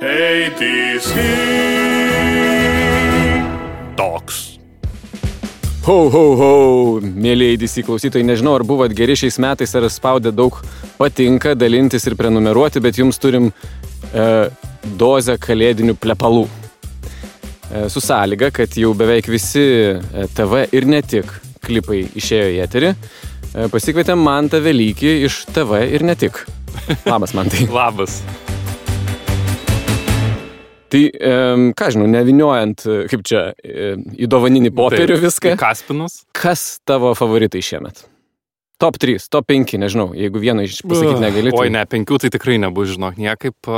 ATC Talks. Ho, ho, ho, mėlyje ATC klausytojai, nežinau, ar buvot geri šiais metais, ar spaudė daug patinka, dalintis ir prenumeruoti, bet jums turim dozę kalėdinių plepalų. Su sąlyga, kad jau beveik visi TV ir ne tik klipai išėjo į eterį. Pasikvietėm Mantą Velykį iš TV ir ne tik. Labas, Mantai. Labas. Tai, ką žinau, neviniojant, kaip čia, į dovaninį popierių viską. Kaspinus. Kas tavo favoritai šiemet? Top 3, top 5, nežinau, jeigu vieną pasakyti negali. Oi, ne, 5 tai tikrai nebus, žinok, niekaip.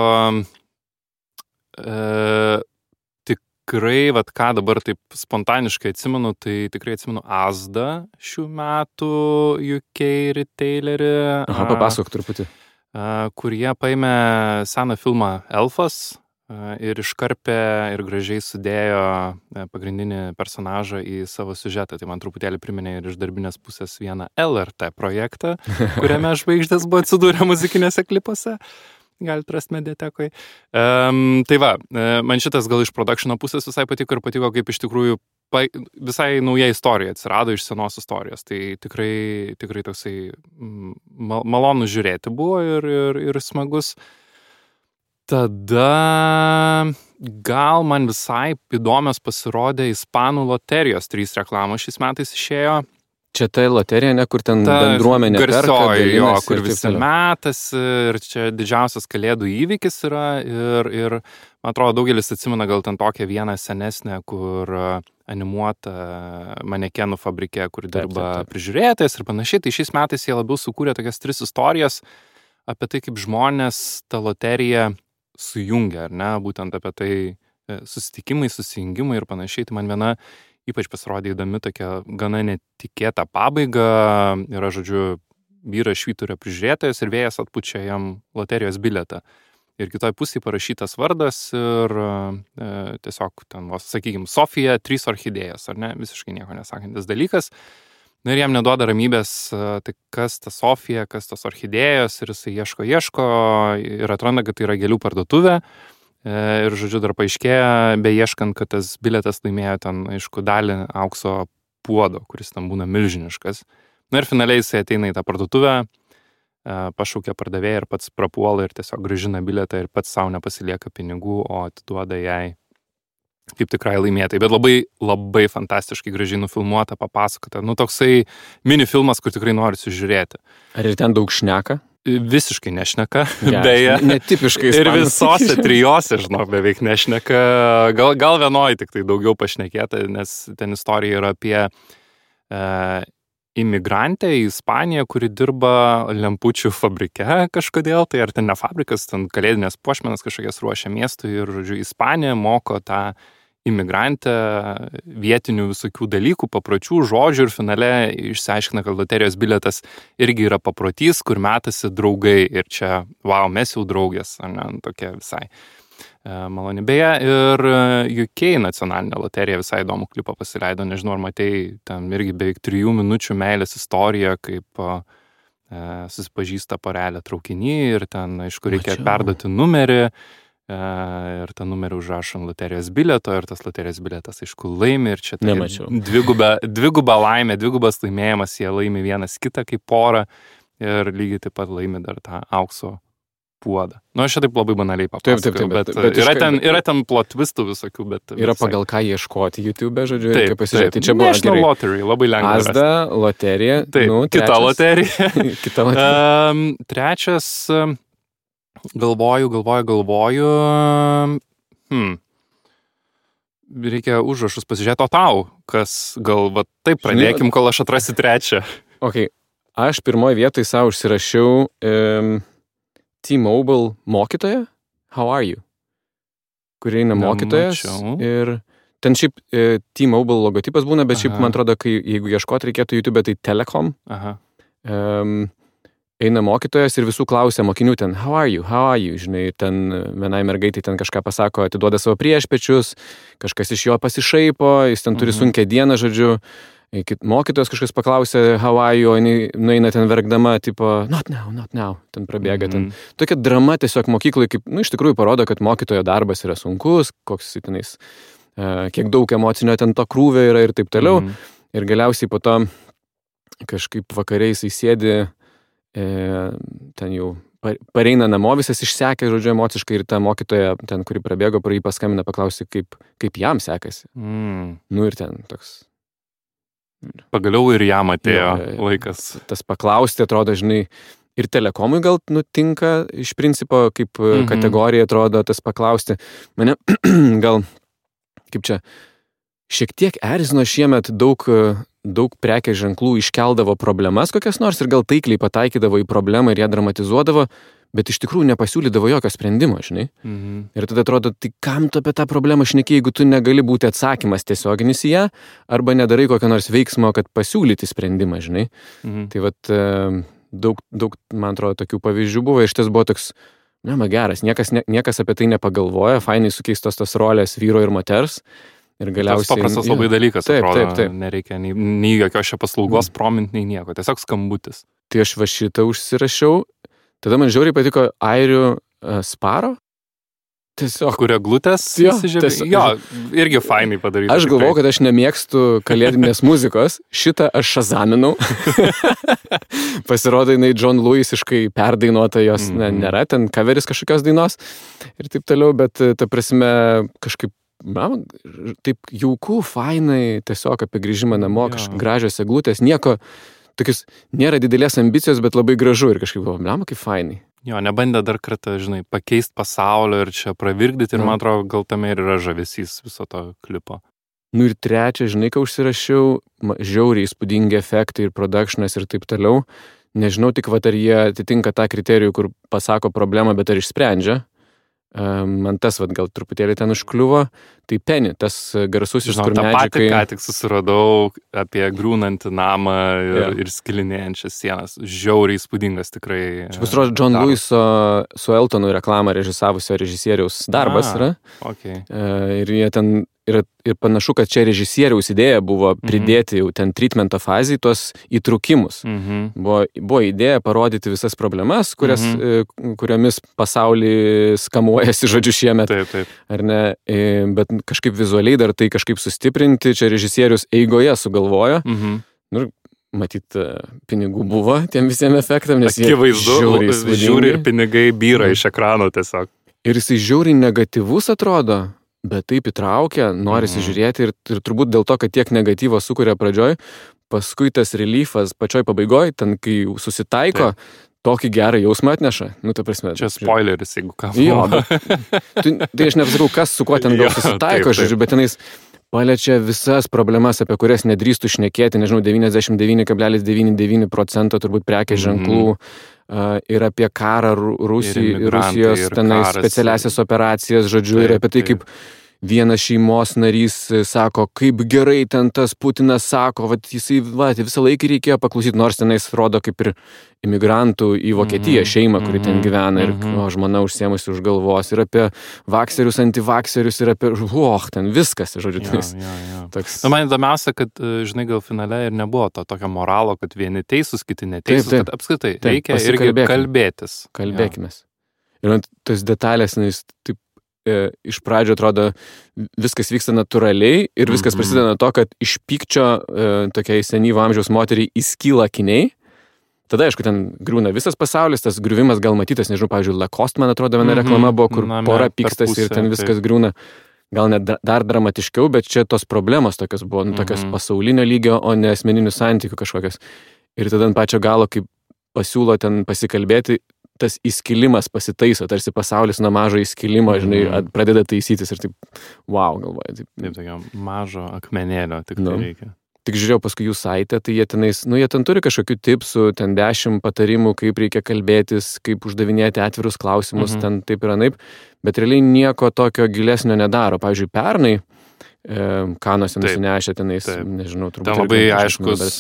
Tikrai, vat ką dabar taip spontaniškai atsimenu, tai tikrai atsimenu Asda šių metų UK retailerį. Aha, papasakok truputį. Kur jie paėmė seną filmą Elfas ir iškarpė ir gražiai sudėjo pagrindinį personažą į savo siužetą. Tai man truputėlį priminė ir iš darbinės pusės vieną LRT projektą, kuriame žvaigždės buvo atsidūrę muzikinėse klipuose. Galite rasti mediatekoje. Tai va, man šitas gal iš produkšino pusės visai patiko ir patiko, kaip iš tikrųjų visai nauja istorija atsirado iš senos istorijos. Tai tikrai toksai malonu žiūrėti buvo ir smagus. Tada gal man visai įdomios pasirodė Ispanų loterijos 3 reklamos šiais metais išėjo. Čia ta loterija, ne, kur ten bendruomenė perka, dalinasi, kur visi metasi ir čia didžiausias kalėdų įvykis yra ir man atrodo daugelis atsimena gal ten tokią vieną senesnę, kur animuota manekenų fabrike, kur dirba prižiūrėtojas ir panašiai. Tai šiais metais jie labiau sukūrė tokias 3 istorijas apie tai, kaip žmonės tą loteriją sujungia, ar ne, būtent apie tai susitikimai, susijungimai ir panašiai. Tai man viena ypač pasirodė įdomi tokia gana netikėta pabaiga. Yra, žodžiu, vyras švyturio prižiūrėtojas ir vėjas atpučia jam loterijos bilietą. Ir kitoj pusėje parašytas vardas ir tiesiog ten, sakykime, Sofija 3 orchidėjos, ar ne, visiškai nieko nesakantis dalykas. Na ir jam neduoda ramybės, tai kas ta Sofija, kas tos orchidėjos ir jisai ieško ir atranda, kad tai yra gėlių parduotuvė. Ir, žodžiu, dar paaiškėja, beieškant, kad tas bilietas laimėjo ten, aišku, dalį aukso puodo, kuris ten būna milžiniškas. Na ir finaliai jisai ateina į tą parduotuvę, pašaukia pardavėją ir pats prapuola ir tiesiog grąžina bilietą ir pats savo nepasilieka pinigų, o atiduoda jai kaip tikrai laimėtai. Bet labai, labai fantastiškai gražiai nufilmuota, papasakota. Nu, toksai mini filmas, kur tikrai norisi žiūrėti. Ar ir ten daug šneka? Visiškai nešneka, ja, beje. Netipiškai ir visose 3, žinok, beveik nešneka. Gal vienoje tik tai daugiau pašnekėta, nes ten istorija yra apie imigrantę į Ispaniją, kuri dirba lempučių fabrike kažkodėl. Tai ar ten ne fabrikas, ten kalėdinės puošmenas kažkokias ruošia miestui ir, žodžiu, Ispanija moko tą imigrantę vietinių visokių dalykų, papročių, žodžių ir finale išsiaiškina, kad loterijos bilietas irgi yra paprotys, kur metasi draugai ir čia, wow, mes jau draugės, ar ne, tokia visai maloni. Beje, ir UK nacionalinė loterija visai įdomų klipą pasileido, nežinau, ar matei, ten irgi beveik 3 minučių meilės istorija, kaip susipažįsta porelė traukiny ir ten, aišku, reikia perduoti numerį. Ir tą numerį užrašo ant loterijos bilieto ir tas loterijos bilietas, aišku, laimi ir čia tai dviguba laimė, dvigubas laimėjimas, jie laimi vienas kitą kaip porą ir lygiai taip pat laimi dar tą aukso puodą. Nu, aš čia taip labai banaliai papasakau, bet yra ten plot twistų visokių, bet yra pagal ką ieškoti YouTube, žodžiu, reikia pasižiūrėti. Tai čia buvo National Lottery, labai lengva. Asda, loterija, kita loterija. Kita loterija. Trečias, galvoju. Reikia užrašus pasižiūrėti, o tau, kas gal, va taip pradėkim, kol aš atrasiu trečią. Ok, aš pirmoje vietoje savo užsirašiau T-Mobile mokytoja, how are you? Kur eina mokytojas ir ten šiaip T-Mobile logotipas būna, bet šiaip man atrodo, jeigu ieškoti reikėtų YouTube, tai Telekom. Eina mokytojas ir visų klausia mokinių ten, how are you, žinai, ten vienai mergaitai ten kažką pasako, atiduoda savo priešpečius, kažkas iš jo pasišaipo, jis ten turi sunkią dieną, žodžiu, Mokytojas kažkas paklausė how are you, o jinai nueina ten verkdama, tipo, not now, ten prabėga. Ten. Tokia drama tiesiog mokyklai, kaip, iš tikrųjų parodo, kad mokytojo darbas yra sunkus, koks tenais, kiek daug emocinio ten to krūvio yra ir taip toliau. Ir galiausiai po to kažkaip vakariais įsėdi, ten jau pareina namo, visas išsekė, žodžiu, emociškai ir ta mokytoja, ten, kuri prabėgo, pro jį paskambina, paklausė, kaip jam sekasi. Nu ir ten toks... Pagaliau ir jam atėjo laikas. Tas paklausti, atrodo, žinai, ir telekomui gal nutinka, iš principo, kaip kategorija atrodo tas paklausti. Mane gal, kaip čia, šiek tiek erzino šiemet daug prekės ženklų iškeldavo problemas kokias nors ir gal taikliai pataikydavo į problemą ir ją dramatizuodavo, bet iš tikrųjų nepasiūlydavo jokio sprendimo, žinai. Ir tada atrodo, tai kam tu apie tą problemą šneki, jeigu tu negali būti atsakymas tiesioginis į ją, arba nedarai kokio nors veiksmo, kad pasiūlyti sprendimą, žinai. Tai vat daug, man atrodo, tokių pavyzdžių buvo, iš ties buvo toks, geras, niekas apie tai nepagalvoja, fainai sukeistos tos rolės vyro ir moters. Ir galiausiai... Tas paprastas labai dalykas, atrodo, nereikia nei jokios šio paslaugos promint, nei nieko, tiesiog skambutis. Tai aš va šitą užsirašiau, tada man žiauriai patiko airių Sparo. Tiesiog. Kurio glutės įsižiūrė. Jo, irgi fainai padaryti. Aš galvojau, kad aš nemėgstu kalėdinės muzikos, šitą aš šazaminau. Pasirodo, jinai John Lewisiškai perdainuota, jos nėra, ten coveris kažkokios dainos ir taip toliau, bet ta prasme kažkaip taip jauku, fainai, tiesiog apie grįžimą namo, gražios eglutės, nieko, tokius, nėra didelės ambicijos, bet labai gražu ir kažkaip buvo, kaip fainai. Jo, nebandė dar kartą, žinai, pakeist pasaulio ir čia pravirkdyti ir man atrodo, gal tame ir yra žavesys viso to klipo. Nu ir trečia, žinai, ką užsirašiau, žiauriai įspūdingi efektai ir productionas ir taip toliau. Nežinau tik, ar jie atitinka tą kriterijų, kur pasako problemą, bet ar išsprendžia. Man tas, gal truputėlį ten užkliuvo, tai Penny, tas garsusis, kur medžiai... Tą patį ką tik susiradau apie griūnantį namą ir skilinėjančias sienas. Žiauriai įspūdingas tikrai. Čia pasirodo, John Lewiso su Eltonu reklamą režisavusio režisieriaus darbas yra. Okay. Ir jie ten... Ir panašu, kad čia režisieriaus idėja buvo pridėti jau ten treatmento fazį tuos įtrūkimus. Buvo idėja parodyti visas problemas, kuriomis pasaulį skamuojasi, žodžiu, šiemet. Taip. Ar ne? Bet kažkaip vizualiai dar tai kažkaip sustiprinti, čia režisierius eigoje sugalvojo. Nu, matyt, pinigų buvo tiem visiems efektam, nes jie žiūri ir pinigai byra iš ekrano tiesiog. Ir jisai žiauriai negatyvus atrodo. Bet taip įtraukia, norisi žiūrėti ir turbūt dėl to, kad tiek negatyvo sukuria pradžioj, paskui tas reliefas pačioj pabaigoj, ten kai susitaiko, tokį gerą jausmą atneša. Nu, ta prasme. Čia spoileris, jeigu ką. Jo, tai aš nepasakau, kas su kuo ten gal susitaiko, žodžiu, bet tenais paliečia visas problemas, apie kurias nedrįstų šnekėti, nežinau, 99,99% turbūt prekės ženklų. Ir apie karą Rusijos tenais specialiasias operacijas, žodžiu, ir apie tai, kaip vienas šeimos narys sako, kaip gerai ten tas Putinas sako, jisai visą laiką reikėjo paklausyti, nors tenais rodo kaip ir imigrantų į Vokietiją šeimą, kuri ten gyvena ir žmona užsiemusi už galvos, ir apie vakserius, antivakserius, ir apie, ten viskas, žodžiu. Toks... Man įdomiausia, kad, žinai, gal finale ir nebuvo to tokio moralo, kad vieni teisūs, kiti neteisūs, kad apskritai reikia irgi kalbėtis. Kalbėkimės. Ir tas detalės, taip, iš pradžio atrodo viskas vyksta natūraliai ir viskas prasideda nuo to, kad iš pykčio tokiai senyvo amžiaus moteriai įskyla akiniai. Tada, aišku, ten griūna visas pasaulis, tas griuvimas gal matytas, nežinau, pavyzdžiui, Lacoste, man atrodo, viena reklama buvo, kur pora pykstasi ir ten viskas griūna. Gal net dar dramatiškiau, bet čia tos problemos tokios buvo, tokios pasaulinio lygio, o ne asmeninių santykių kažkokios. Ir tada ant pačio galo, kaip pasiūlo ten pasikalbėti, tas įskilimas pasitaiso, tarsi pasaulis nuo mažo įskilimo, žinai, pradeda taisytis ir taip, wow, galvoju. Taip, tokio mažo akmenėlio tik tai reikia. Tik žiūrėjau paskui jų saitę, tai jie tenais, jie ten turi kažkokių tipsų, ten 10 patarimų, kaip reikia kalbėtis, kaip uždavinėti atvirus klausimus, ten taip ir anaip, bet realiai nieko tokio gilesnio nedaro. Pavyzdžiui, pernai Kanuose nusinešę tenais, nežinau, turbūt. Tai labai aiškus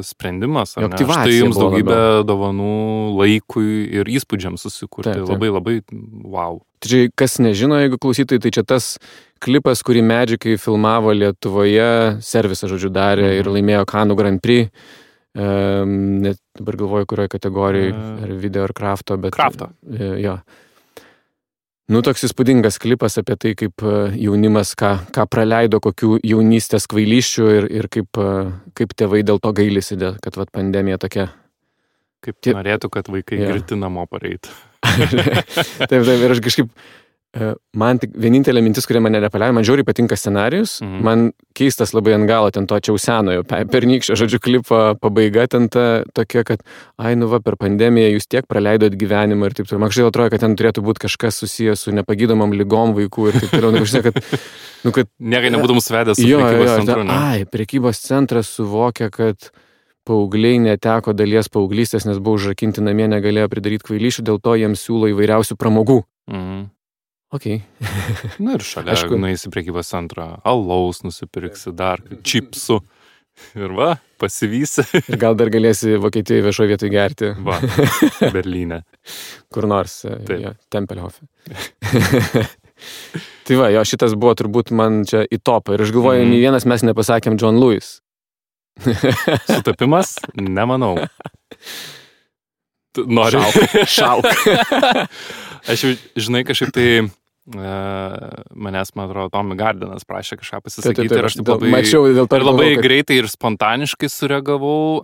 sprendimas, ar ne? Štai jums daugybę dovanų laikui ir įspūdžiams susikurti. Labai, labai wow. Tai kas nežino, jeigu klausytojai, tai čia tas klipas, kurį Magikai filmavo Lietuvoje, servisą, žodžiu, darė ir laimėjo Kanų Grand Prix. Net dabar galvoju, kurioje kategorijoje, ar video, ar krafto, bet... Krafto. Jo. Toks įspūdingas klipas apie tai, kaip jaunimas, ką praleido, kokių jaunystės kvailyščių ir kaip tėvai dėl to gailisi, kad pandemija tokia. Kaip norėtų, kad vaikai girti namo pareitų. Taip, ir aš kažkaip, man tik vienintelė mintis, kurie mane nepaliauja, man žiauriai patinka scenarijus, man keistas labai ant galo, ten to čia senojo, pernykščio, žodžiu, klipo pabaiga ten tokia, kad, per pandemiją jūs tiek praleidot gyvenimą ir taip toliau. Man kažkaip atrodo, kad ten turėtų būti kažkas susijęs su nepagydomam lygom vaikų ir taip toliau. Niekai nebūtum svedęs su prekybos centru, ne? Prekybos centras suvokia, kad paaugliai neteko dalies paauglystės, nes buvo užrakinti namie, negalėjo pridaryti kvailyšių, dėl to jiems siūlo įvairiausių pramogų. Okay. Ir šalia, nueisi prekybos centrą, alaus nusipirksi, dar čipsų ir pasivysi. Ir gal dar galėsi Vokietijoje viešoje vietoje gerti. Berlyne. Kur nors, Tempelhofe. Tai šitas buvo turbūt man čia į topą. Ir aš galvoju, nei vienas mes nepasakėm John Lewis. Sutapimas? Nemanau. Nori? Šauk. Aš jau, žinai, kažkaip tai manęs, man atrodo, Tommy Gardinas prašė kažką pasisakyti ir aš labai greitai ir spontaniškai sureagavau.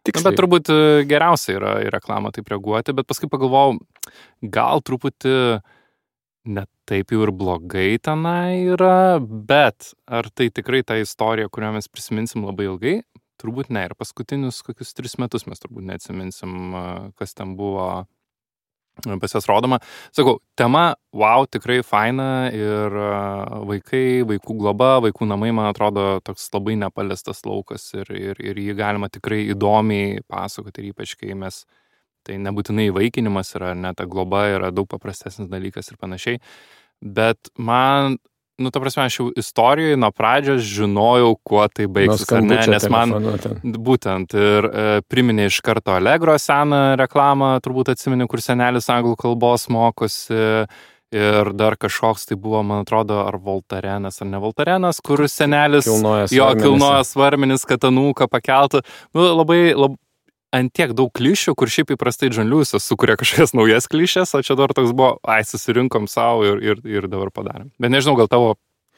Bet turbūt geriausia yra į reklamą taip reaguoti, bet paskui pagalvojau, gal truputį ne taip jau ir blogai tenai yra, bet ar tai tikrai ta istorija, kurią mes prisiminsim labai ilgai? Turbūt ne. Ir paskutinius kokius 3 metus mes turbūt neatsiminsim, kas ten buvo pas jas rodoma. Sakau, tema, tikrai faina ir vaikai, vaikų globa, vaikų namai, man atrodo, toks labai nepaliestas laukas ir jį galima tikrai įdomiai pasakoti ir ypač, kai mes, tai nebūtinai įvaikinimas yra, ne ta globa yra daug paprastesnis dalykas ir panašiai, bet man, ta prasme, aš jau istorijoje nuo pradžios žinojau, kuo tai baigsis, ar ne, nes man būtent ir priminė iš karto Allegro seną reklamą, turbūt atsimeni, kur senelis anglų kalbos mokosi ir dar kažkoks tai buvo, man atrodo, ar Voltarenas, ar ne Voltarenas, kur senelis kilnoja svarmenis, kad anūką pakeltų. Labai ant tiek daug klišių, kur šiaip įprastai John Lewisas sukuria kažkokias naujas klišės, o čia dar toks buvo, susirinkom savo ir dabar padarėm. Bet nežinau, gal tavo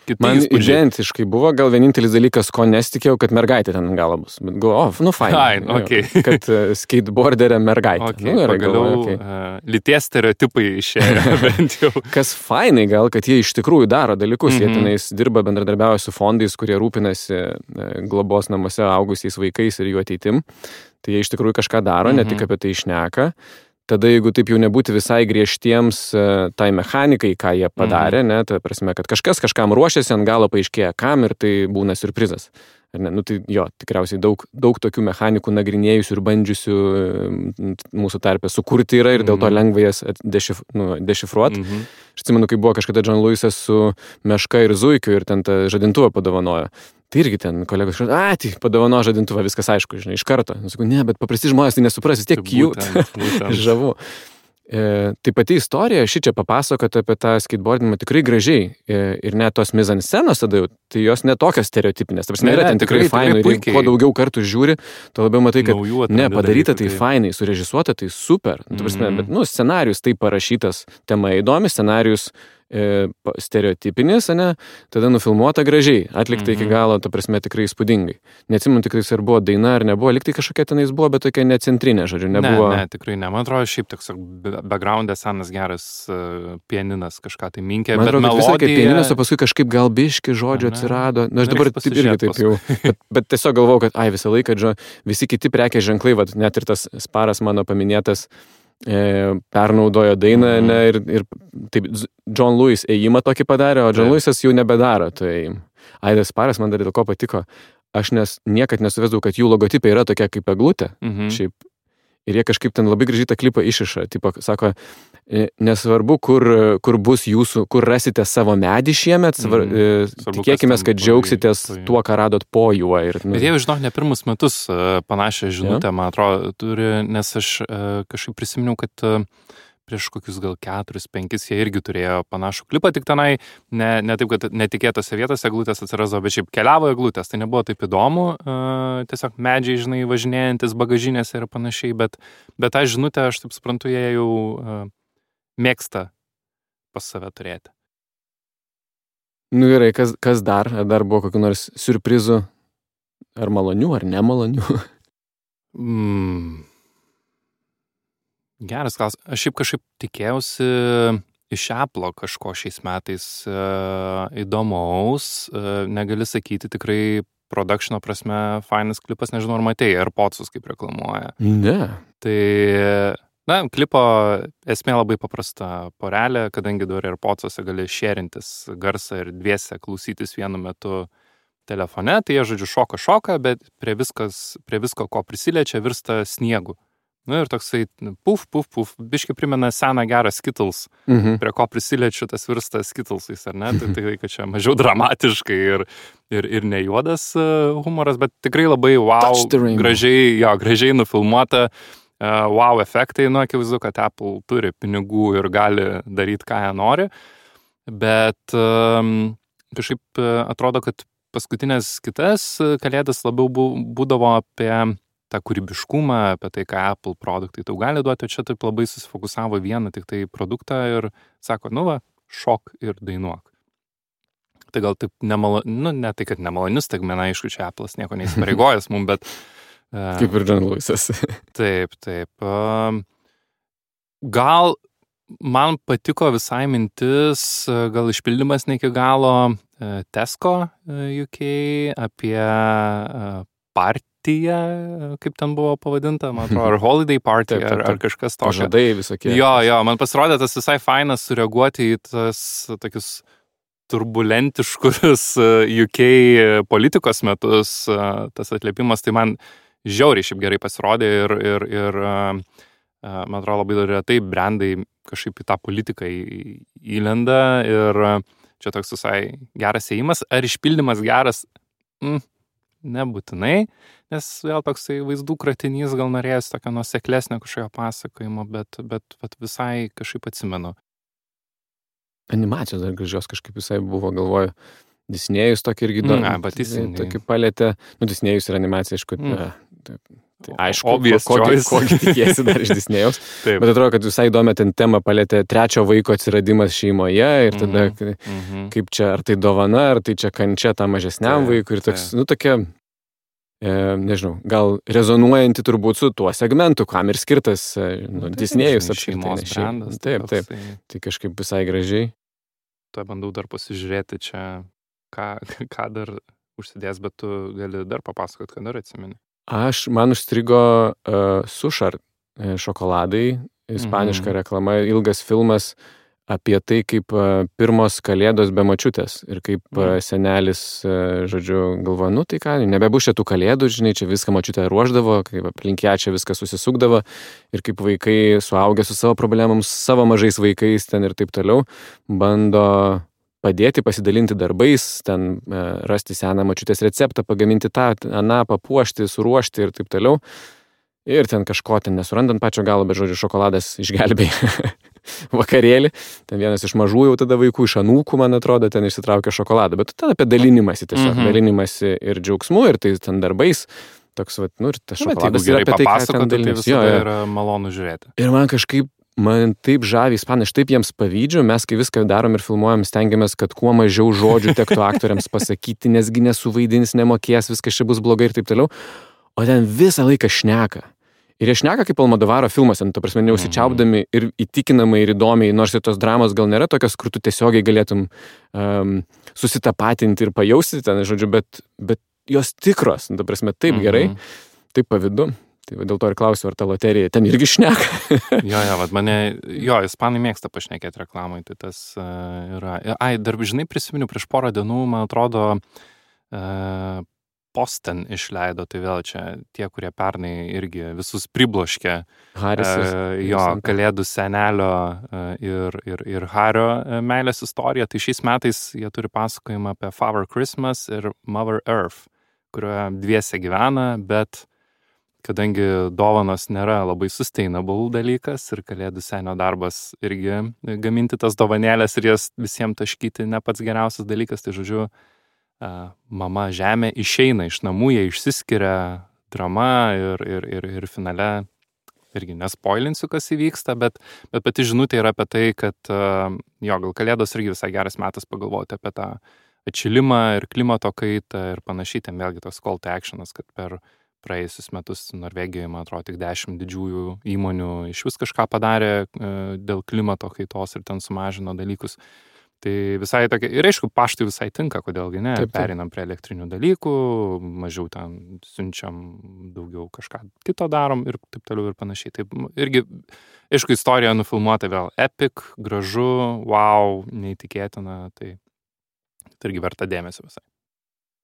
kiti man įspūdžiai. Identiškai buvo, gal vienintelis dalykas, ko nesitikėjau, kad mergaitė ten galą bus. Bet galvoju, fain. Okay. Kad skateboarderė mergaitė. Okay, pagaliau lyties stereotipai išėjo bent jau. Kas fainai gal, kad jie iš tikrųjų daro dalykus. Jie tenais dirba, bendradarbiauja su fondais, kurie rūpinasi globos namuose augusiais vaikais ir jų ateitim. Tai jie iš tikrųjų kažką daro, ne tik apie tai šneka. Tada, jeigu taip jau nebūti visai griežtiems tai mechanikai, ką jie padarė, ne, ta prasme, kad kažkas kažkam ruošiasi, ant galo paaiškėja kam ir tai būna siurprizas. Tai tikriausiai daug tokių mechanikų nagrinėjusių ir bandžiusių mūsų tarpe sukurti yra ir dėl to lengva jas dešifruoti. Aš atsimenu, kai buvo kažkada John Lewisas su Meška ir Zuikiu ir ten tą žadintuvą padovanojo. Tai irgi ten kolegos padovano žadintuvą, viskas aišku, žinai, iš karto. Sakau, ne, bet paprasti žmonės tai nesupras, vis tiek cute, žavu. Tai pati istorija, ši čia papasakota apie tą skateboardinimą tikrai gražiai. Ir net tos mizanscenos tada jau, tai jos netokios stereotipinės. Ta prasme, yra ten tikrai fainai. Ir kuo daugiau kartų žiūri, to labiau matai, kad padaryta tai fainai, surežisuota tai super. Ta prasme, bet, scenarius tai parašytas, tema įdomi, scenarius stereotipinis, ne, tada nufilmuota gražiai, atlikta iki galo, ta prasme, tikrai įspūdingai. Neatsimenu tikrai, ar buvo daina ar nebuvo, liktai kažkokia tenais buvo, bet tokia necentrinė, žodžiu, nebuvo. Ne, tikrai ne. Man atrodo, šiaip toks background'e senas geras pianinas kažką tai minkė, bet melodija... Visai kaip pianinas, o paskui kažkaip gal biški žodžių atsirado. Aš dabar irgi taip jau. Bet tiesiog galvojau, kad visą laiką, visi kiti prekės ženklai, net ir tas Sparas mano paminėtas, pernaudojo dainą, ne, ir taip John Lewis ėjimą tokį padarė, o John Lewisas jau nebedaro. Tai Aidas Sparas man dar dėl ko patiko. Aš niekad nesuvesdavau, kad jų logotipė yra tokia kaip eglutė. Šiaip. Ir jie kažkaip ten labai gražiai tą klipą išiša. Tipo, sako, nesvarbu, kur bus jūsų, kur rasite savo medį šiemet, tikėkime, kad džiaugsitės tuo, ką radot po juo. Bet jie, žinok, ne pirmus metus panašią žinutę, man atrodo, turi, nes aš kažkaip prisiminiau, kad prieš kokius gal 4-5 jie irgi turėjo panašų klipą, tik tenai ne taip, kad netikėtose vietose eglutės atsirasdavo, bet šiaip keliavo eglutės, tai nebuvo taip įdomu, tiesiog medžiai, žinai, važinėjantis bagažinėse ir panašiai, bet tą žinutę, aš taip suprantu, jie jau mėgsta pas save turėti. Nu gerai, kas dar? Ar dar buvo kokių nors siurprizų? Ar malonių, ar nemalonių? Geras klausimas. Aš šiaip kažkaip tikėjausi iš Apple'o kažko šiais metais įdomaus. Negali sakyti, tikrai productiono prasme fainas klipas, nežinau, ar matei, AirPodsus kaip reklamuoja. Ne. Tai, klipo esmė labai paprasta. Porelė, kadangi dabar AirPodsuose gali šėrintis garsą ir dviese klausytis vienu metu telefone, tai jie, žodžiu, šoka, bet prie visko, ko prisiliečia, virsta sniegu. Ir toksai puf, biškai primena seną gerą Skittles, prie ko prisiliečiu, tas virsta Skittlesais, ar ne? Tai kad čia mažiau dramatiškai ir ne juodas humoras, bet tikrai labai gražiai nufilmuota, efektai, akivaizdu, kad Apple turi pinigų ir gali daryti, ką jie nori, bet kažkaip atrodo, kad paskutinės kitas kalėdas labiau būdavo apie tą kūrybiškumą, apie tai, ką Apple produktai tau gali duoti, o čia taip labai susifokusavo vieną tik tai produktą ir sako, šok ir dainuok. Tai gal taip ne tai, kad nemalonius, tai man aišku, čia Apple'as nieko neįsipareigojęs mums, bet... Kaip ir John Lewisas. Taip. Gal man patiko visai mintis, gal išpildymas ne iki galo Tesco UK apie partiją, kaip ten buvo pavadinta, man atrodo, ar holiday party, ar kažkas tokio. Pažadai visokie. Jo, man pasirodė tas visai fainas sureaguoti į tas tokius turbulentiškus UK politikos metus, tas atliepimas, tai man žiauriai šiaip gerai pasirodė ir man atrodo, labai retai brandai kažkaip į tą politiką įlenda ir čia toks visai geras ėjimas. Ar išpildymas geras? Nebūtinai, nes vėl toksai vaizdų kratinys gal norėjęs tokio nuoseklesnio kažkokio pasakojimo, bet visai kažkaip atsimenu. Animacijos dar gražios kažkaip visai buvo, galvoju, Disnėjus tokį irgi tokį palėtė. Disnėjus ir animacija, aišku, tai aišku, kokį tikiesi dar iš Disnėjaus. Bet atrodo, kad visai įdomi ten tema palėtė trečio vaiko atsiradimas šeimoje ir tada kaip čia, ar tai dovana, ar tai čia kančia tam mažesniam vaikui ir toks, tokia, nežinau, gal rezonuojanti turbūt su tuo segmentu, kam ir skirtas Disnėjus šeimos brandas. Taip. Tai kažkaip visai gražiai. Tuo bandau dar pasižiūrėti čia, ką dar užsidės, bet tu gali dar papasakot, ką dar atsimeni. Man užstrigo Sušar šokoladai, ispaniška reklama, ilgas filmas apie tai, kaip pirmos kalėdos be močiutės ir kaip senelis, žodžiu, galvoja, tai ką, nebebus čia tų kalėdų, žinai, čia viską močiutė ruošdavo, kaip aplink ją čia viskas susisukdavo ir kaip vaikai suaugę su savo problemams, savo mažais vaikais ten ir taip toliau, bando padėti, pasidalinti darbais, ten rasti seną močiutės receptą, pagaminti tą, papuošti, suruošti ir taip toliau. Ir ten kažko ten nesurandant pačio galo, bet žodžiu, šokoladas išgelbėjo vakarėlį. Ten vienas iš mažų jau tada vaikų, iš anūkų, man atrodo, ten išsitraukė šokoladą. Bet tada apie dalinimąsi tiesiog, dalinimąsi ir džiaugsmu, ir tai ten darbais. Toks, ir tas šokoladas yra apie tai, ką ten dalinimąsi. Tai visada yra malonu žiūrėti. Ir man taip žavi ispanai, aš taip jiems pavydžiu, mes kai viską darom ir filmuojam, stengiamės, kad kuo mažiau žodžių tektų aktoriams pasakyti, nesgi nesuvaidins, nemokės, viskas čia bus blogai ir taip toliau. O ten visą laiką šneka. Ir jie šneka kaip Almodovaro filmuose, ta prasme, neusičiaupdami ir įtikinamai ir įdomiai, nors ir tos dramos gal nėra tokios, kur tu tiesiogiai galėtum susitapatinti ir pajausti ten, žodžiu, bet jos tikros, ta prasme, taip gerai, taip pavydu. Tai dėl to ir klausiu, ar ta loterija ten irgi šneka. Ispanai mėgsta pašnekėti reklamai, tai tas yra. Dar, žinai, prisiminiu prieš porą dienų, man atrodo, Posten išleido, tai vėl čia tie, kurie pernai irgi visus pribloškė kalėdų senelio ir Hario meilės istoriją. Tai šiais metais jie turi pasakojimą apie Father Christmas ir Mother Earth, kurioje dviese gyvena, bet kadangi dovanos nėra labai sustainable dalykas ir kalėdų senio darbas irgi gaminti tas dovanėlės ir jas visiems taškyti ne pats geriausias dalykas, tai žodžiu, mama žemė išeina iš namų, jie išsiskiria, drama ir finale, irgi nespoilinsiu, kas įvyksta, bet pati žinutė yra apie tai, kad gal kalėdos irgi visai geras metas pagalvoti apie tą atšilimą ir klimato kaitą ir panašiai, ten vėlgi toks call to actionas, kad per praėjusius metus Norvegijoje, man atrodo, tik 10 didžiųjų įmonių iš vis kažką padarė dėl klimato kaitos ir ten sumažino dalykus. Tai visai tokia, ir aišku, paštui visai tinka, kodėlgi ne, pereinam prie elektrinių dalykų, mažiau ten siunčiam, daugiau kažką kito darom ir taip toliau ir panašiai. Taip, irgi, aišku, istorija nufilmuota vėl epic, gražu, wow, neįtikėtina, tai irgi verta dėmesio visai.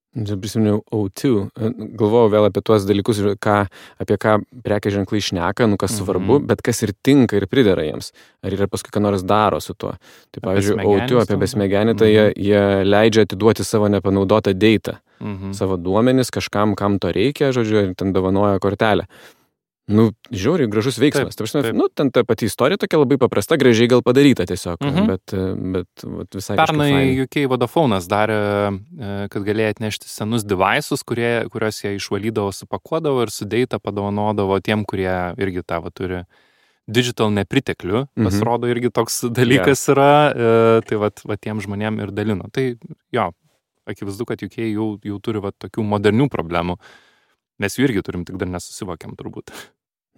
Prisiminiau O2, galvojau vėl apie tuos dalykus, apie ką prekės ženklai šneka, kas svarbu, bet kas ir tinka ir pridera jiems. Ar yra paskui ką nors daro su tuo. Tai pavyzdžiui, O2 apie besmegenį, tai jie leidžia atiduoti savo nepanaudotą datą, savo duomenis kažkam, kam to reikia, žodžiu, ir ten dovanoja kortelę. Žiauriai gražus veiksmas. Taip. Ten ta pati istorija tokia labai paprasta, gražiai gal padaryta tiesiog, bet visai pernai UK Vodafone'as darė, kad galėjo atnešti senus devices, kuriuos jie išvalydavo, supakuodavo ir su data padovanodavo tiem, kurie irgi tavo turi digital nepriteklių. Pasirodo, irgi toks dalykas yra, tai va tiem žmonėm ir dalino. Tai akivaizdu, kad UK jau turi tokių modernių problemų. Mes jų irgi turim, tik dar nesusivokiam turbūt.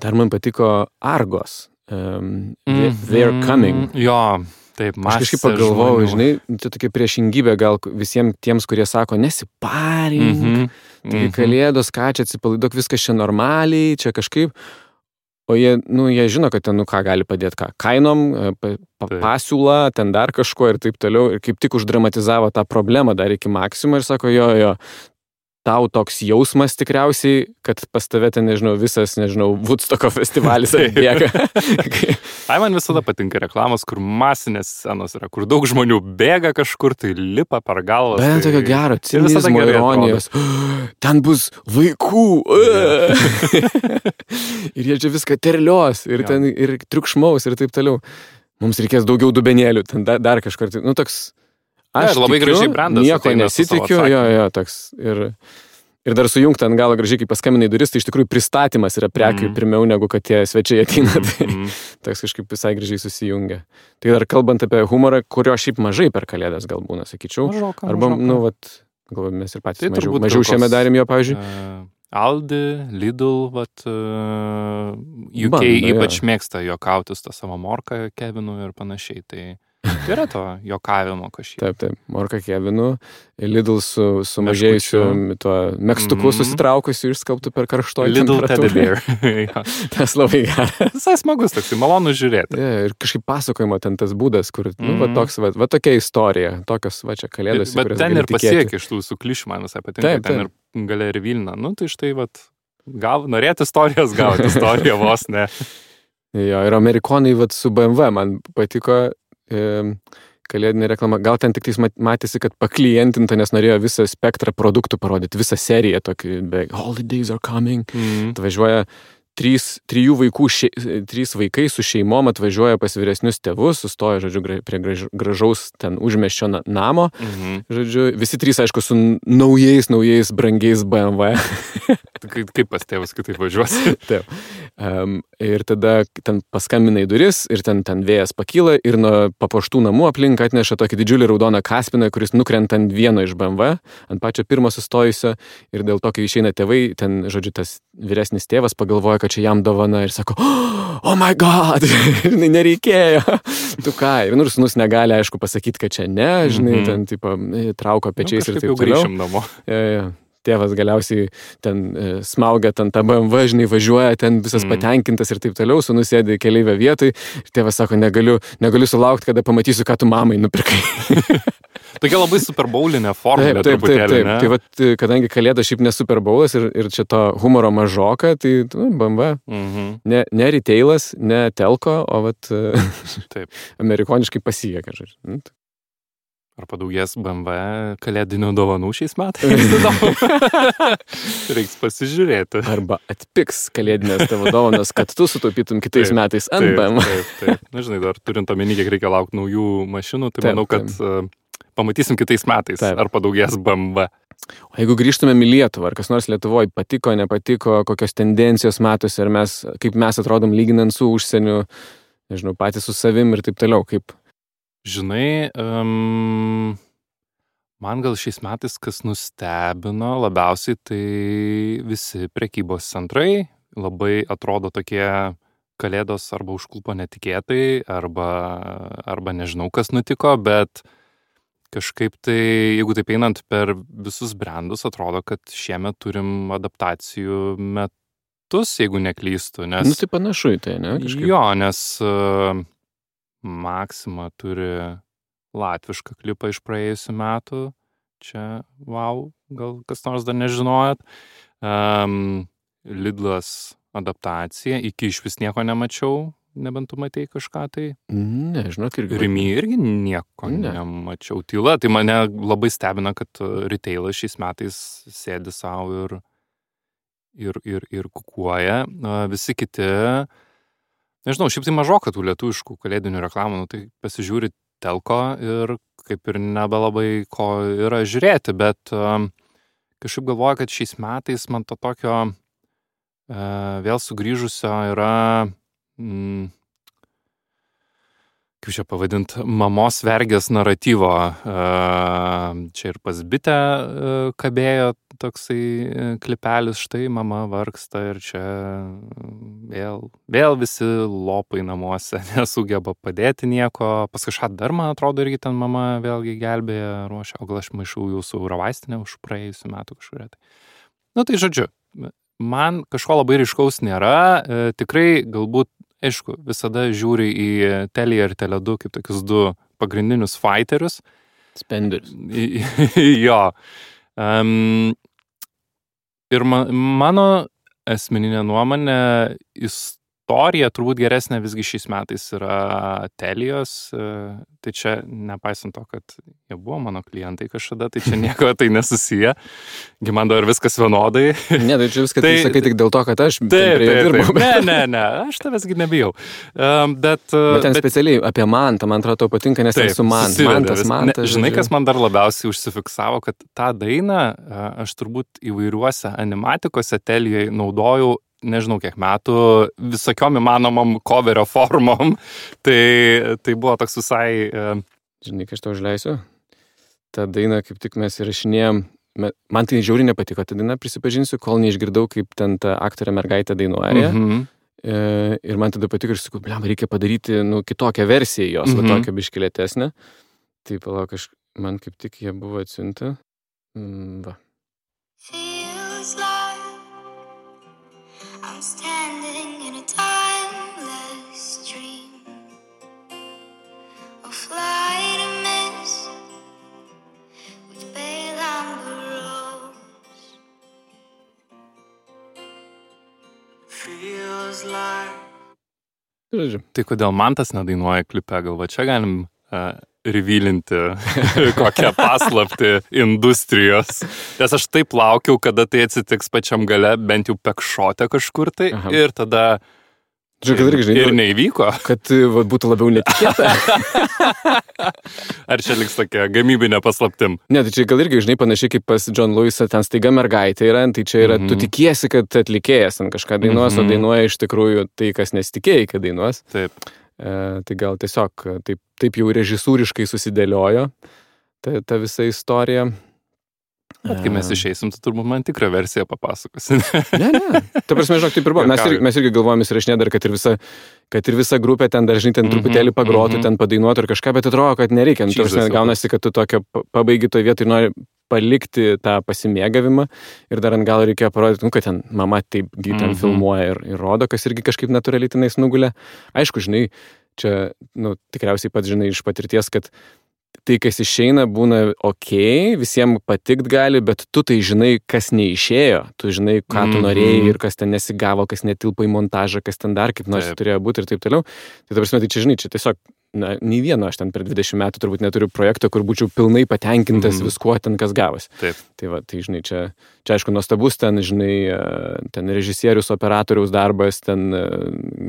Dar man patiko Argos. They're coming. Jo, taip, aš kažkaip pagalvojau, žinai, čia tokia priešingybė gal visiems tiems, kurie sako, nesiparink, tai kalėdos, ką čia atsipalaiduok, viskas čia normaliai, čia kažkaip. O jie žino, kad ten, ką gali padėti, kainom, pasiūla, ten dar kažko ir taip toliau. Ir kaip tik uždramatizavo tą problemą dar iki maksimum ir sako, jo, tau toks jausmas tikriausiai, kad pas tave ten, visas, Woodstocko festivalis atbėga. Man visada patinka reklamos, kur masinės scenos yra, kur daug žmonių bėga kažkur, tai lipa per galvą. Bet tokio gero, cinizmo, ironijos. Ten bus vaikų. Ir jie čia viską terlios, ir ten ir triukšmaus, ir taip toliau. Mums reikės daugiau dubenėlių, ten dar kažkur. Toks... Aš labai gražiai brandas. Nieko nesitikiu, toks. Ir dar sujungti ant galo gražiai, kai paskambinai duris, tai iš tikrųjų pristatymas yra prekių pirmiau, negu kad tie svečiai ateina. Tai toks kažkaip visai gražiai susijungia. Tai dar kalbant apie humorą, kurio šiaip mažai per kalėdas gal būna, sakyčiau. Mažoka. Arba, galvoju, mes ir patys mažiau šiame darėm jo, pavyzdžiui. Aldi, Lidl, UK ypač mėgsta juokautis tą savo morką Kevinu ir panašiai, tai yra to juokavimo kažkiek. Taip, morka Kevinu, Lidl su mažėjusiu tuo megstuku susitraukusiu išskalbtų per karštoji Lidl Teddy Bear. Tas labai geras. Visai smagus, toks, malonu žiūrėti. Ir kažkaip pasakojimo ten tas būdas, kur, tokia istorija, tokios, čia kalėdos. Bet ten ir pasiekė iš tų suklišių, man visai patinka, ten ir galia ir Vilna. Tai štai, norėti istorijos, gauti istoriją vos, ne. Jo, ir amerikonai, su BMW man patiko kalėdinė reklama. Gal ten tik matėsi, kad paklientinta, nes norėjo visą spektrą produktų parodyti, visą seriją tokį, holidays are coming. Atvažiuoja trys vaikai su šeimom atvažiuoja pas vyresnius tėvus, sustoja, žodžiu, prie gražaus ten užmiesčio namo. Žodžiu, visi trys, aišku, su naujais, brangiais BMW. Kaip pas tėvus kitaip važiuosi? Taip. Ir tada ten paskambina į duris ir ten vėjas pakyla ir nuo papuoštų namų aplink atneša tokį didžiulį raudoną kaspiną, kuris nukrenta ant vieno iš BMW, ant pačio pirmo sustojusio, ir dėl to, kai išeina tėvai, ten, žodžiu, tas vyresnis tėvas pagalvoja, kad čia jam dovana ir sako, oh my god, nereikėjo. Tu ką? Ir sūnus negali, aišku, pasakyti, kad čia ne, žinai, ten, tipo, trauko pečiais ir taip toliau. Grįšim namo. tėvas galiausiai ten smaugia ten tą BMW, žinai, važiuoja ten visas patenkintas ir taip toliau, sūnus sėdi keleivio vietoj ir tėvas sako, negaliu sulaukti, kada pamatysiu, ką tu mamai nupirkai. Tokia labai superboulinė formulė truputėlį, ne? Tai vat, kadangi Kalėda šiaip ne superboulas ir čia to humoro mažoka, tai BMW. Ne retailas, ne telko, o vat amerikoniškai pasijėka, žodžiu. Ar padaugės BMW kalėdinių dovanų šiais metais? Reiks pasižiūrėti. Arba atpiks kalėdinės tavo dovanos, kad tu sutaupytum kitais metais ant BMW. Taip. Na, žinai, dar turint omeny, kiek reikia laukti naujų mašinų, tai manau, kad pamatysim kitais metais, ar padaugės BMW. O jeigu grįžtumėm į Lietuvą, ar kas nors Lietuvoje patiko, nepatiko, kokios tendencijos matosi, ar kaip mes atrodom lyginant su užsieniu, nežinau, patys su savim ir taip toliau, kaip... Žinai, man gal šiais metais, kas nustebino labiausiai, tai visi prekybos centrai labai atrodo tokie kalėdos arba užklupo netikėtai, arba nežinau, kas nutiko, bet kažkaip tai, jeigu taip einant per visus brandus, atrodo, kad šiemet turim adaptacijų metus, jeigu neklystu. Nes... tai panašu į tai, ne? Kažkaip. Jo, nes... Maxima turi latvišką klipą iš praėjusių metų. Čia, wow, gal kas nors dar nežinojot. Lidlas adaptacija. Iki iš vis nieko nemačiau, nebent tu matei kažką tai. Ne, žinok, irgi. Rimi irgi nieko nemačiau. Tyla, tai mane labai stebina, kad retailas šiais metais sėdi savo ir kukuoja. Visi kiti... Nežinau, šiaip tai mažoka tų lietuviškų kalėdinių reklamų, tai pasižiūri telko ir kaip ir nebelabai ko yra žiūrėti, bet kažkaip galvoju, kad šiais metais man to tokio vėl sugrįžusio yra, kaip čia pavadint, mamos vergės naratyvo. Čia ir pas bitę kabėjo toksai klipelis, štai mama vargsta ir čia vėl visi lopai namuose nesugeba padėti nieko. Pas kažką dar, man atrodo, irgi ten mama vėlgi gelbėja, ruošia, o gal aš maišau jūsų Eurovaistinę už praėjusių metų kažkuria. Tai žodžiu, man kažko labai ryškaus nėra, tikrai galbūt, aišku, visada žiūri į Teliją ir Tele2 kaip tokius du pagrindinius fighterius. Spenderius. Jo. Ir mano asmeninė nuomonė, istorija turbūt geresnė visgi šiais metais yra Telijos. Tai čia, nepaisant to, kad jie buvo mano klientai kažkada, tai čia nieko tai nesusiję. Man dar viskas vienodai. Ne, tai čia viską tai sakai tik dėl to, kad aš prie jo dirbau. Ne, aš tavęsgi nebijau. Bet ten specialiai apie Mantą, man atrodo, tau patinka, nes ten su Mantas. Žinai, kas man dar labiausiai užsifiksavo, kad tą dainą aš turbūt įvairiuose animatikose Telijoje naudojau, nežinau kiek metų, visokiom įmanomom coverio formom. Tai buvo toks visai... Žinai, kai aš tau užleisiu, tą dainą kaip tik mes įrašinėjom, man tai žiauriai nepatiko, tą dainą prisipažinsiu, kol neišgirdau, kaip ten ta aktorė mergaitė dainuoja. Ir man tada patiko ir sakau, reikia padaryti kitokią versiją jos, tokią biškilėtesnę. Tai palauk, man kaip tik jie buvo atsiuntę. Va. I'm standing in a timeless dream, a flight of mist with pale amber rose. Feels like. Tai kodėl Mantas nedainuoja klipe, gal va čia galim revealinti kokią paslaptį industrijos. Nes aš taip laukiau, kada tai atsitiks pačiam gale, bent jau pekšote kažkur tai. Aha. Ir tada ir neįvyko. Kad būtų labiau netikėta. Ar čia liks tokia gamybinė paslaptim? Ne, tai čia gal irgi, žinai, panašiai kaip pas John Lewisą, ten staiga mergaitė yra, tai čia yra, tu tikiesi, kad atlikėjas ten kažką dainuos, o dainuoja iš tikrųjų tai, kas nesitikėjai, kad dainuos. Taip. Tai gal tiesiog taip jau režisūriškai susidėliojo ta visa istorija. Bet kai mes išeisim, tu turbūt man tikrą versiją papasakosi. Ne. Ta prasme, žinok, taip ir buvo. Mes irgi galvojame įsirašinė dar, kad ir visa grupė ten dar, žinai, ten truputėlį pagrotų, ten padainuotų ir kažką, bet atrodo, kad nereikia. Ta prasme, gaunasi, kad tu tokio pabaigi toj vietoj ir nori palikti tą pasimėgavimą ir dar ant galo reikėjo parodyti, kad ten mama taip ten filmuoja ir rodo, kas irgi kažkaip natūraliai tenais nugulė. Aišku, žinai, čia, tikriausiai pats žinai iš patirties, kad tai, kas išeina, būna visiems patikt gali, bet tu tai žinai, kas neišėjo, tu žinai, ką tu norėjai ir kas ten nesigavo, kas netilpa į montažą, kas ten dar kaip nors turėjo būti ir taip toliau. Tai ta prasme, tai čia, žinai, čia tiesiog, nei vieno aš ten per 20 metų turbūt neturiu projekto, kur būčiau pilnai patenkintas viskuo ten, kas gavosi. Taip. Tai va, tai žinai, čia aišku nuostabus ten, žinai, ten režisierius, operatoriaus darbas, ten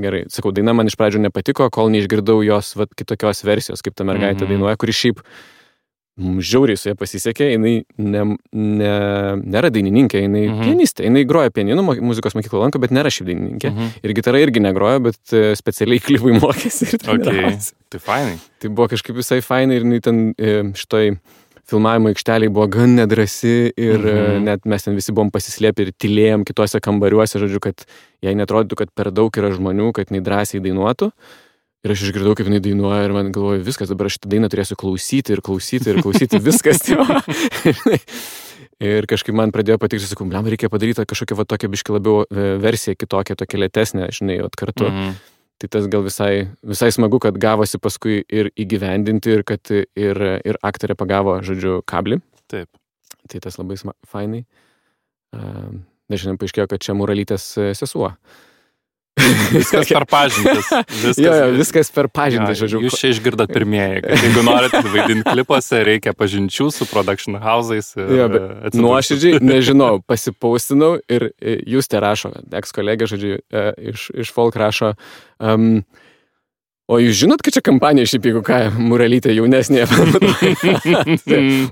gerai. Sakau, daina man iš pradžių nepatiko, kol neišgirdau jos kitokios versijos, kaip ta mergaitė dainuoja, kuri šiaip žiauriai su ja pasisekė, jinai nėra dainininkė, jinai pianistė, jinai groja pianinu, muzikos mokyklą lanko, bet nėra šiaip dainininkė. Ir gitarą irgi negroja, bet specialiai klipui mokėsi ir treniravosi. Tai fainai. Tai buvo kažkaip visai fainai ir jinai ten šitoj filmavimo aikšteliai buvo gan nedrasi ir net mes ten visi buvom pasislėpę ir tylėjom kitose kambariuose, žodžiu, kad jai netrodytų, kad per daug yra žmonių, kad jinai drąsiai dainuotų. Ir aš išgirdau, kaip jinai dainuoja ir man galvoju, viskas, dabar aš šitą dainą turėsiu klausyti, viskas. Ir kažkaip man pradėjo patikti, sakau, reikia padaryti kažkokią tokią biškį labiau versiją, kitokią, tokią lėtesnę, žinai, kartu. Tai tas gal visai smagu, kad gavosi paskui ir įgyvendinti ir kad ir aktorė pagavo, žodžiu, kablį. Taip. Tai tas labai fainai. Nežinau, paaiškėjo, kad čia Muralytės sesuo. Viskas per pažintis. Viskas per pažintis, žodžiu. Jūs čia išgirdat pirmieji, kad jeigu norite vaidinti klipuose, reikia pažinčių su production house'ais. Nuoširdžiai, nežinau, pasipaustinau ir jūs te rašo, eks-kolegė, žodžiu, iš Folk rašo, o jūs žinot, kad čia kampanija šiaip, jeigu ką, Muralytė jaunesnė.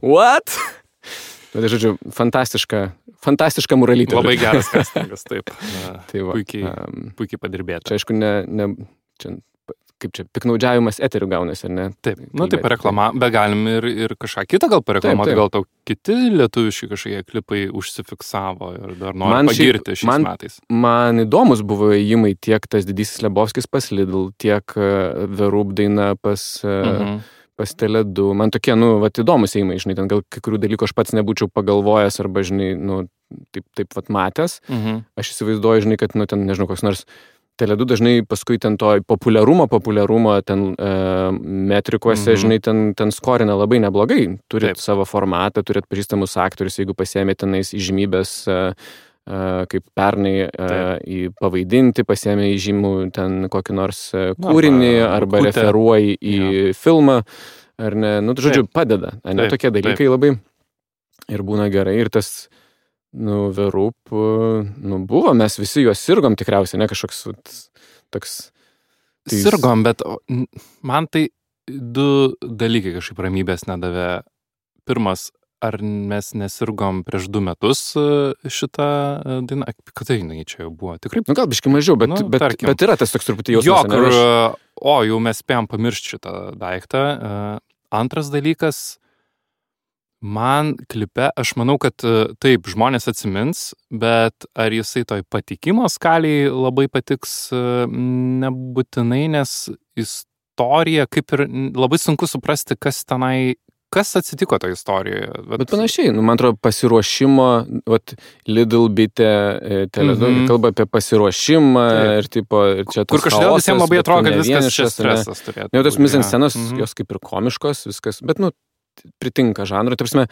What? Tai, žodžiu, fantastiška Muralytė. Labai geras castingas, taip. Tai va, puikiai padirbėta. Čia, aišku, kaip čia, piknaudžiavimas eterių gaunasi, ar ne? Taip, taip reklama, bet galim ir kažką kitą gal pareklamuoti, gal tau kiti lietuviški kažkokie klipai užsifiksavo ir dar nori pagirti šiais metais. Man įdomus buvo įėjimai tiek tas Didysis Lebovskis pas Lidl, tiek Verub daina pas Tele2. Man tokie, įdomus įėjimai, žinai, ten gal kai kurių dalykų aš pats nebūčiau pagalvojęs arba, žinai, taip matęs. Aš įsivaizduoju, žinai, kad, ten, nežinau, koks nors Tele2 dažnai paskui ten to populiarumo ten metrikuose, žinai, ten skorina labai neblogai. Turit savo formatą, turit pažįstamus aktorius, jeigu pasiėmė tenais įžymybės kaip pernai į pavaidinti, pasiėmė įžymų ten kokį nors kūrinį arba referuoji į filmą, ar ne, žodžiu, padeda, ne, tokie dalykai labai ir būna gerai ir tas, Verub, buvo, mes visi juos sirgom tikriausiai, ne, kažkoks toks. Sirgom, bet man tai du dalykai kažkaip ramybės nedavė. Pirmas, ar mes nesirgom prieš 2 metus šitą dainą? Kada jinai čia jau buvo? Tikrai? Gal biškai mažiau, bet yra tas toks truputį jausmas. Jau mes spėjom pamiršti šitą daiktą. Antras dalykas, man klipe, aš manau, kad taip, žmonės atsimins, bet ar jisai toj patikimo skaliai labai patiks, nebūtinai, nes istorija, kaip ir labai sunku suprasti, kas atsitiko toje istorijoje. Bet panašiai, man atrodo, pasiruošimo, Lidl bitė, Tele2 kalba apie pasiruošimą ir tipo, ir čia tas kur kažkodėl visiems labai atrodo, kad viskas čia stresas turėtų. Jau tos mizanscenos, jos kaip ir komiškos, viskas, bet, pritinka žanrui. Ta prasme,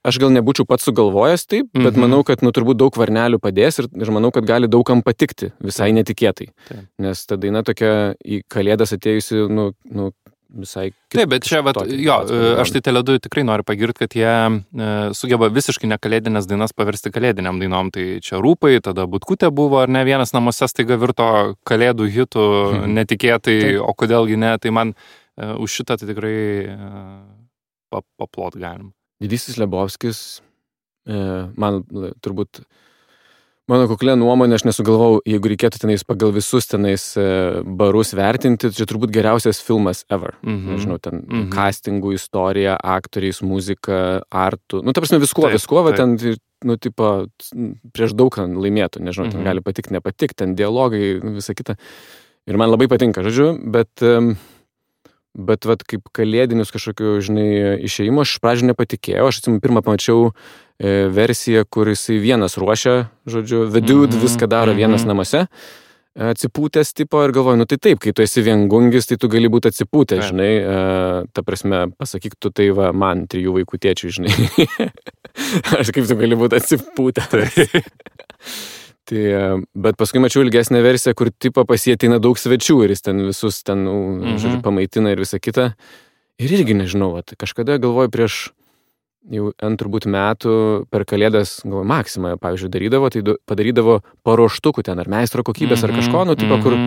aš gal nebūčiau pats sugalvojęs taip, bet manau, kad, turbūt daug varnelių padės ir manau, kad gali daugam patikti visai netikėtai. Nes ta daina tokia į Kalėdas atėjusi, visai kitaip. Taip, bet čia, aš tai Tele2 tikrai noriu pagirti, kad jie sugeba visiškai nekalėdinės dainas paversti kalėdiniam dainom. Tai čia Rūpai, tada Butkutė buvo, ar ne, vienas namuose staiga virto kalėdų hitų netikėtai, o kodėlgi ne, tai man už šitą tai tikrai paplot galim. Didysis Lebovskis, man turbūt, mano kuklė nuomonė, aš nesugalvau, jeigu reikėtų tenais pagal visus tenais barus vertinti, čia turbūt geriausias filmas ever. Nežinau, ten castingų istorija, aktoriais, muzika, artų, ta prasme viskuo, ten, tipo, prieš daug laimėtų, nežinau, ten gali patikti, nepatikti, ten dialogai, visa kita. Ir man labai patinka, žodžiu, bet Bet vat kaip kalėdinius kažkokiu, žinai, išėjimo, aš pradžių nepatikėjau. Aš atsimenu, pirmą pamačiau versiją, kur jisai vienas ruošia, žodžiu, the dude viską daro vienas namuose, atsipūtęs tipo ir galvoju, nu tai taip, kai tu esi viengungis, tai tu gali būti atsipūtęs, žinai, ta prasme, pasakyk tu tai va man, 3 vaikų tėčiui, žinai. Aš kaip tu gali būti atsipūtęs. Tai, bet paskui mačiau ilgesnę versiją, kur tipo pasietina daug svečių ir jis ten visus ten, žodžiu, pamaitina ir visą kitą. Ir irgi nežinau, kažkada galvoju prieš jau turbūt metų per kalėdas, galvoju, Maxima, pavyzdžiui, darydavo, tai padarydavo paruoštukų ten, ar meistro kokybės, ar kažko, nu, tipo, kur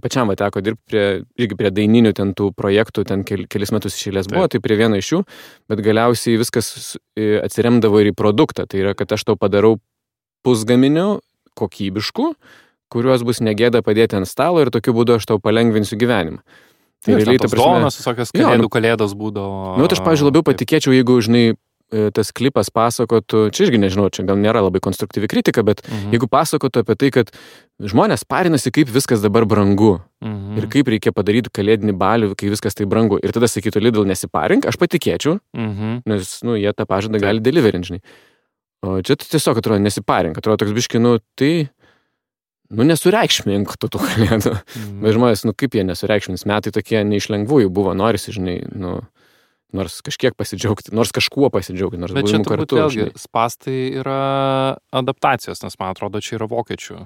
pačiam teko dirbti irgi prie daininių ten tų projektų, ten kelis metus iš eilės buvo, tai prie vieno iš jų, bet galiausiai viskas atsiremdavo ir į produktą, tai yra, kad aš tau padarau pusgaminių kokybiškų, kuriuos bus negėda padėti ant stalo ir tokiu būdu aš tau palengvinsiu gyvenimą. Tai realiai, ta prasme, dovanas, visokios kalėdos būdavo. Nu, aš, pavyzdžiui, labiau patikėčiau, jeigu, žinai, tas klipas pasakotų, čia irgi nežinau, čia gal nėra labai konstruktyvi kritika, bet jeigu pasakotų apie tai, kad žmonės parinasi, kaip viskas dabar brangu ir kaip reikia padaryti kalėdinį balių, kai viskas tai brangu. Ir tada sakytų, Lidl, nesiparink, aš patikėčiau, nes, nu, jie tą pažadą gali deliverint, žinai. O čia tiesiog atrodo nesiparink, atrodo toks biški, nu, tai... Nu, nesureikšmink tų kalėdų. Bet žmonės, nu, kaip jie nesureikšmins, metai tokie neišlengvųjų buvo, norisi, žinai, nu, nors kažkiek pasidžiaugti, nors kažkuo pasidžiaugti, nors buvimu kartu. Bet čia turbūt vėlgi spastai yra adaptacijos, nes man atrodo, čia yra vokiečių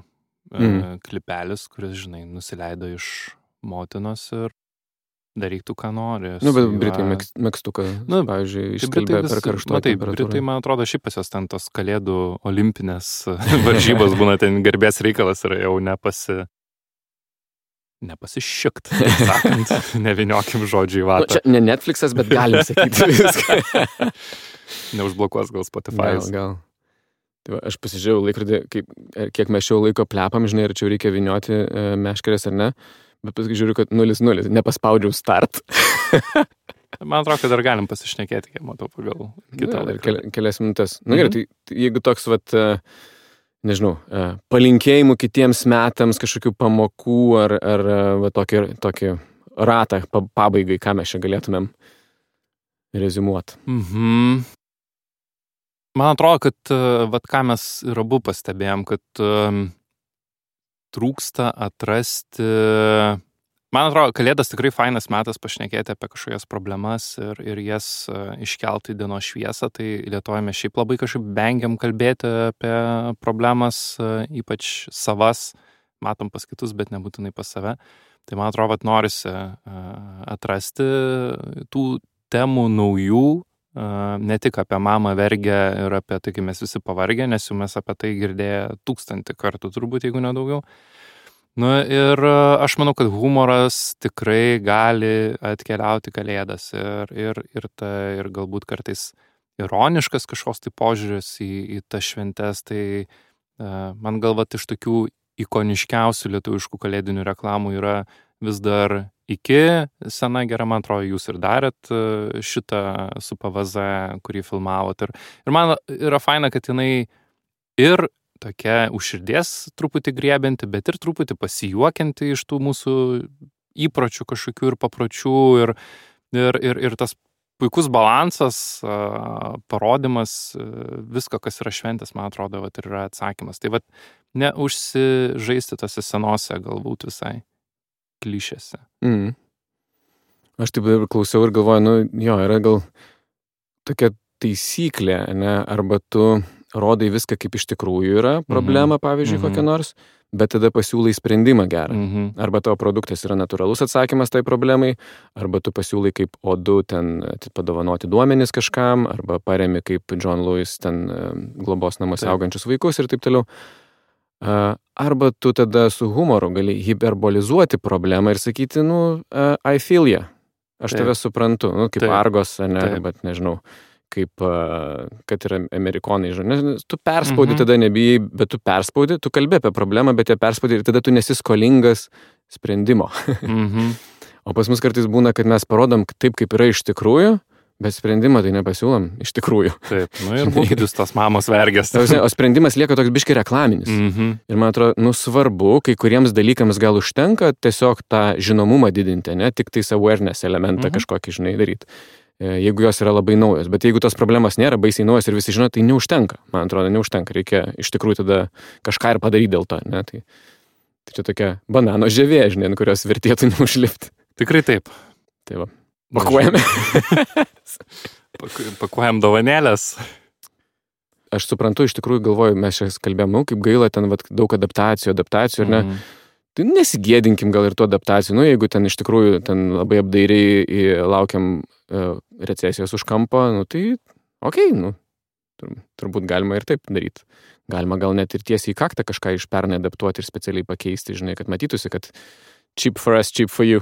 klipelis, kuris, žinai, nusileido iš motinos ir daryk tu, ką nori. Nu, bet Britai megztuką, pavyzdžiui, išskalbė per karštą temperatūrą. Britai, man atrodo, šiaip pas jos ten tos kalėdų olimpinės varžybos būna ten garbės reikalas ir jau nepasišikt, taip sakant, neviniokim žodžių į vatą. Nu, čia ne Netflixas, bet galim sakyti viską. Neužblokuos gal Spotify. Gal. Tai va, aš pasižiūrėjau laikrodį, kiek mes šio laiko plepam, žinai, ar čia reikia vinioti meškerės ar ne. Bet paskui žiūriu, kad 0-0, nepaspaudžiau start. Man atrodo, kad dar galim pasišnekėti, kiek matau pagal kitą laiką. Kelias minutės. Na gerai, tai jeigu toks, vat, nežinau, palinkėjimų kitiems metams, kažkokių pamokų ar va, tokį ratą pabaigai, ką mes čia galėtumėm reziumuoti. Man atrodo, kad vat, ką mes ir abu pastebėjom, kad trūksta atrasti... Man atrodo, kalėdas tikrai fainas metas pašnekėti apie kažkokias problemas ir jas iškelti į dienos šviesą. Tai Lietuvoje mes šiaip labai kažkaip vengiam kalbėti apie problemas, ypač savas, matom pas kitus, bet nebūtinai pas save. Tai man atrodo, kad norisi atrasti tų temų naujų, ne tik apie mamą vergę ir apie tai, kai mes visi pavargę, nes jau mes apie tai girdėję 1000 kartų turbūt, jeigu nedaugiau. Nu ir aš manau, kad humoras tikrai gali atkeliauti kalėdas ir galbūt kartais ironiškas kažkoks tai požiūris į tas šventes, tai man galvat iš tokių ikoniškiausių lietuviškų kalėdinių reklamų yra vis dar iki sena gera, man atrodo, jūs ir darėt šitą su PVZ, kurį filmavot. Ir man yra faina, kad jinai ir tokia už širdies truputį griebianti, bet ir truputį pasijuokianti iš tų mūsų įpročių kažkokių ir papročių ir tas puikus balansas, parodimas, visko, kas yra šventės, man atrodo, vat, ir yra atsakymas. Tai vat, neužsižaisti tose senose galbūt visai klišėse. Aš taip ir klausiau ir galvoju, nu jo, yra gal tokia taisyklė, ne, arba tu rodai viską, kaip iš tikrųjų yra problema, pavyzdžiui, kokia nors, bet tada pasiūlai sprendimą gerą. Arba tavo produktas yra natūralus atsakymas tai problemai, arba tu pasiūlai kaip O2 ten padovanoti duomenis kažkam, arba paremi kaip John Lewis ten globos namuose augančius vaikus ir taip toliau. Arba tu tada su humoru gali hiperbolizuoti problemą ir sakyti, nu, I feel ya. Aš tave suprantu, nu, kaip Argos, ne, bet nežinau, kaip, kad yra amerikonai, žinai. Tu perspaudi, tada nebijai, bet tu perspaudi, tu kalbi apie problemą, bet ją perspaudi ir tada tu nesi skolingas sprendimo. O pas mus kartais būna, kad mes parodom taip, kaip yra iš tikrųjų, Bet sprendimą tai nepasiūlom, iš tikrųjų. Taip, nu ir būkit jūs tos mamos vergės. O sprendimas lieka toks biški reklaminis. Ir man atrodo, svarbu, kai kuriems dalykams gal užtenka tiesiog tą žinomumą didinti, ne tik tais awareness elementą kažkokį, žinai, daryti. Jeigu jos yra labai naujos. Bet jeigu tos problemos nėra baisiai naujos ir visi žino, tai neužtenka. Man atrodo, neužtenka. Reikia iš tikrųjų tada kažką ir padaryti dėl to, ne? Tai čia tokia banano žievė, žinai, ant kurios vertėtų neužlipti. Tikrai taip. Tai va. Pakuojame. Pakuojam dovanėlės. Aš suprantu, iš tikrųjų galvoju, mes čia kalbėjom, kaip gaila, ten daug adaptacijų, ar ne? Tai nesigėdinkim gal ir tų adaptacijų. Jeigu ten iš tikrųjų ten labai apdairiai laukiam recesijos už kampo, tai okei, turbūt galima ir taip daryti. Galima gal net ir tiesiai į kaktą kažką iš pernai adaptuoti ir specialiai pakeisti, žinai, kad matytųsi, kad cheap for us, cheap for you.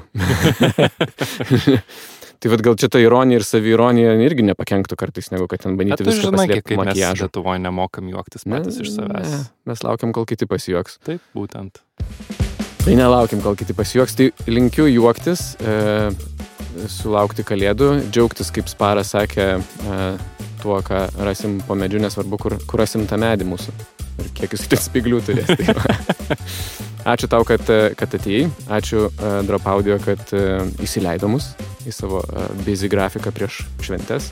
Tai vat gal čia ta ironija ir saviironija irgi nepakenktų kartais, negu kad ten bandyti viską paslėpti makiažu. Mes Lietuvoje nemokam juoktis patys iš savęs. Mes laukiam, kol kiti pasijuoks. Taip, būtent. Tai nelaukiam, kol kiti pasijuoks. Tai linkiu juoktis, sulaukti kalėdų, džiaugtis, kaip Sparas sakė, tuo, ką rasim po medžiu, nesvarbu, kur rasim tą medį mūsų. Ir kiek jis ten spiglių turės. Tai ačiū tau, kad atėjai. Ačiū Drop Audio, kad įsileido mus į savo busy grafiką prieš šventes.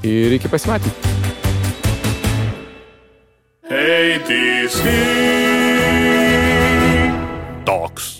Ir iki pasimatymų. ATC Talks.